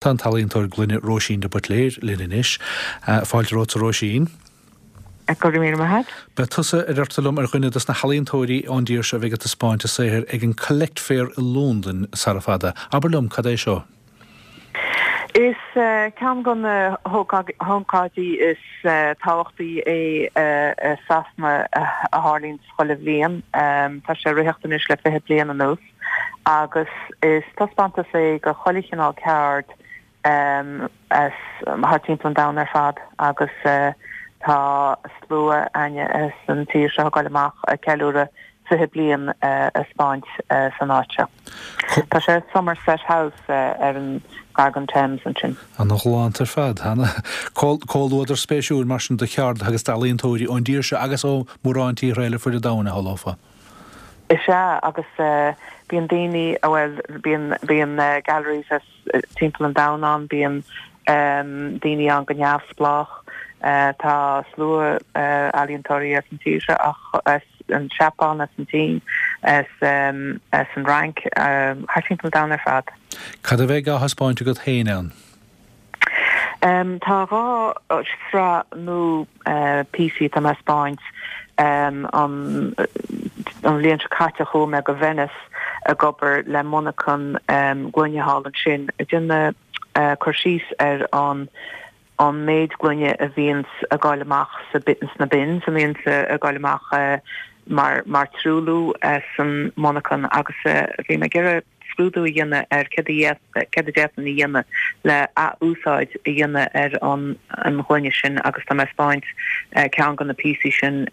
Tá an t-ealaíontóir gloine Róisín de Buitléir linn anois. Fáilte romhat a Róisín. Go raibh míle maith agat. Beidh tusa, a deirtear liom, ar dhuine dos na healaíontóirí ón dtír seo a bheidh ag taispeáint a saothair ag an Collect Fair i Londain sara fada. Abair liom, cad é seo? Is ceann de na hócáidí is tábhachtaí é i Sasana a tharlaíonns chuile bhliain. Tá sé ag ritheacht anois le 20 bliain anuas. agus is taispeántas é de chuile chineál ceard as thart timpeall an domhain ar fad agus tá slua againne as an tír seo ag goil amach ag ceiliúradh 20 bliain a 'speáint san áit seo. Tá sé i Somerset House ar an gar don Thames ansin. Ana-ghalánta ar fad. Comhluadar spéisiúil mar sin de cheardaithe agus d'ealaíontóirí ón dtír seo agus ó mhórán tíortha eile fuaid an domhain, a shamhlófá. Is ea, agus bíonn daoine, bhuel, bíonn, bíonn galleries as timpeall an domhain ann, bíonn daoine ann go neamhspleách, tá slua ealaíontóirí as an tír seo ach as an Seapáin, as an tSín, as as an Fhrainc, thart timpeall an domhain ar fad. Cad a bheidh á thaispeáint agat féin ann? Tá 2 shraith nua píosaí atá mé a 'speáint. An bhliain seo caite chuaigh mé go Venice ag obair le monarchan gloine thall ansin ag déanamh cur síos ar an an méid gloine a bhíonns ag goil amach sna bins, a bhíonns ag goil amach mar mar truailliú san monarchan agus bhí mé ag iarraidh scrúdú a dhéanamh ar céard a céard a d'fhéadfainn a dhéanamh le ath-úsáid a dhéanamh ar an an ghloine sin agus tá mé ag 'speáint ceann de na píosaí sin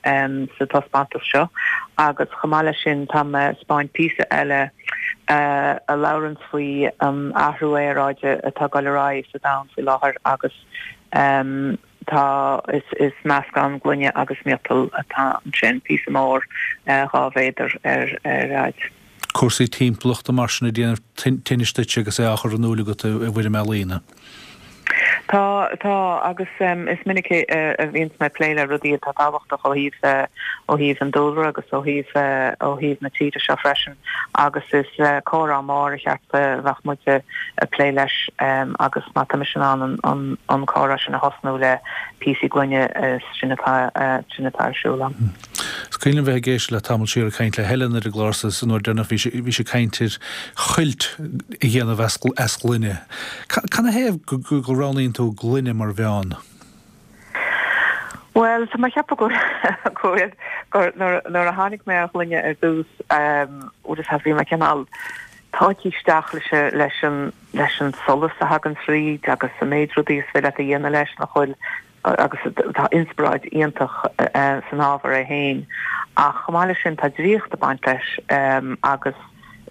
sa taispeántas seo agus chomh maith leis sin tá mé ag 'speáint píosa eile a labhranns faoi an athrú aeráide atá ag dul ar aghaidh sa domhan faoi láthair agus tá is is meascán gloine agus miotal atá ansin, píosa mór 2 mhéadar ar ar fhaid. Cúrsaí timpeallachta mar sin ag déanamh tinnis duit agus é á chur in iúil agat i bhfoirm ealaíne. Tá, tá, agus is minic a bhíonns mé ag plé le rudaí atá tábhachtach ó thaobh, ó thaobh an dúlra agus ó thaobh, ó thaobh na tíre seo freisin agus is comhrá mór ar cheart a bheadh muid ag plé leis agus má tá mise in ann an, an comhrá sin a thosnú le píosaí gloine sin atá, sin atá ar siúl agam. Is cuimhin liom bheith ag éisteacht le tamall siar ag caint le Helen ar an gclár seo an uair deireanach bhí sí bhí sí ag caint ar chuilt a dhéanamh as as gloine. Canathaobh go go roghnaíonn tú gloine mar mheán? Bhuel, tá mé ag ceapadh go go bhfuil gur nuair nuair a tháinig mé ar ghloine ar dtús bhuel is bhí mé cineál tógtha isteach leis leis an leis an solas a thagann tríd agus an méid rudaí is féidir leat a dhéanamh leis nach bhfuil agus tá inspioráid iontach san ábhar é féin ach chomh maith leis sin tá draíocht ag baint leis agus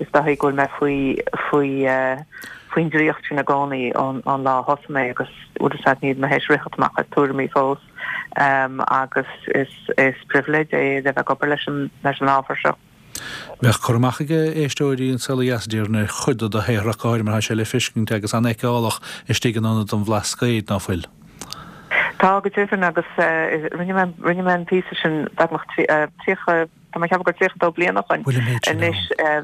is dóigh go bhfuil mé faoi faoi faoin draíocht sin i gcónaí ón lá a thosaigh mé agus bhfuil fhios agat níl mé théis ritheacht amach as tuairimí fós agus is is pribhléid é a bheith ag obair leis an leis an ábhar seo. Bheadh cur amach ag éisteoirí An Saol Ó Dheas, déarfainn, ar chuid de do shaothar ach go háirithe mar tá sé le feiscint agus an-fheiceálach istigh in Ionad an Bhlascaoid, ná fuil? Tá, go deimhin, agus rinne mé, rinne mé an píosa sin beagnach 30, tá mé ag ceapadh gur 32 bliain ó shoin anois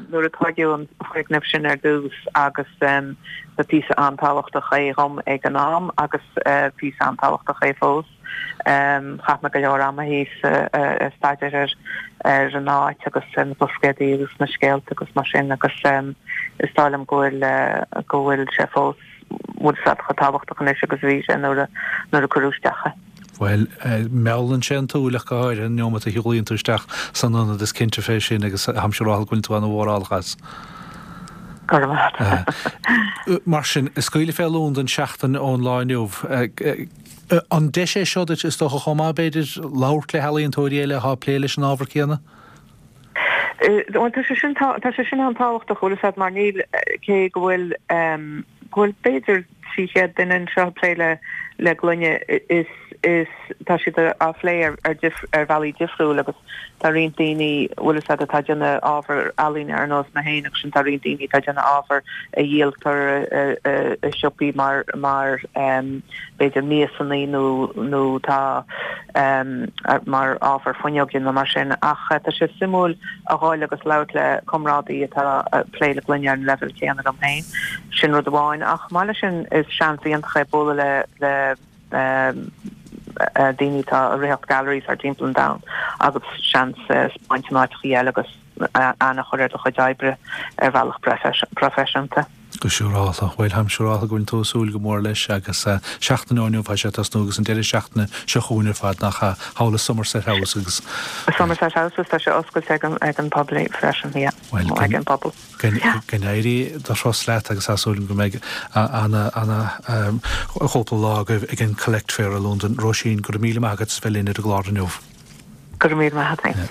nuair a tóigeadh an foirgneamh sin ar dtús agus ba píosa an-tábhachtach é dhom ag an am agus píosa an-tábhachtach é fós. Chaith mé go leor ama thíos ag staidéar ar ar an áit agus ar na Blascaodaí agus na scéalta agus mar sin agus is dóigh liom go bhfuil go bhfuil sé fós bhfuil sé chomh tábhachtach anois agus a bhí sé nuair a nuair a cuireadh isteach é. Bhuel, meallann sé an tsúil ach go háirithe an neomat a shiúlaíonn tú isteach san ionad, is cinnte fé sin agus táimse ag rá go bhfuil tú ana-mhórálach as. Go raibh maith agat. Mar sin, scaoileadh fé Londain seachtain ón lá inniu. An deis é seo duit, is dócha, chomh maith, b'fhéidir, labhairt le healaíontóirí eile atá ag plé leis an ábhar céanna? Bhuel, tá sé sin, tá sé sin an-tábhachtach, bhfuil fhios agat, mar níl, cé go bhfuil, go bhfuil b'fhéidir 300 duine anseo ag plé le, le gloine, is. Is tá siad á phlé ar ar bhealaí difriúil agus tá roinnt daoine, bhfuil fhios agat, atá ag déanamh ábhar ealaíne ar nós mé féin agus sin tá roinnt daoine atá ag déanamh ábhar a dhíoltar i siopaí mar mar b'fhéidir miasanna nó nó tá mar ábhar fuinneoige nó mar sin ach tá sé suimiúil a dhul agus labhairt le comrádaí atá ag plé le gloine ar an leibhéal céanna liom féin. Sin rud amháin ach chomh maith leis sin is seans iontach é bualadh le le daoine atá ag ritheacht galleries thar timpeall an domhain agus seans 'spáint in áiteachaí eile agus aithne a chur ar do chuid oibre ar bhealach proifisiúnta. Go siúrálta. Bhuel, táim siúrálta go bhfuil tú ag súil go mór leis agus seachtain ó inniu tá sé ag tosnú agus an deireadh seachtaine seo chugainn ar fad, nach ea, thall i Somerset House agus. Somerset House agus tá sé oscailte ag an bpobal freisin, yeah, ag an bpobal. Go n-éirí do thuras leat agus tá súil agam go mbeidh ana, ana chúpla lá agaibh ag an Collect Fair i Londain. Róisín, go raibh míle maith agat as bheith linn ar an gclár inniu. Go raibh míle maith agat.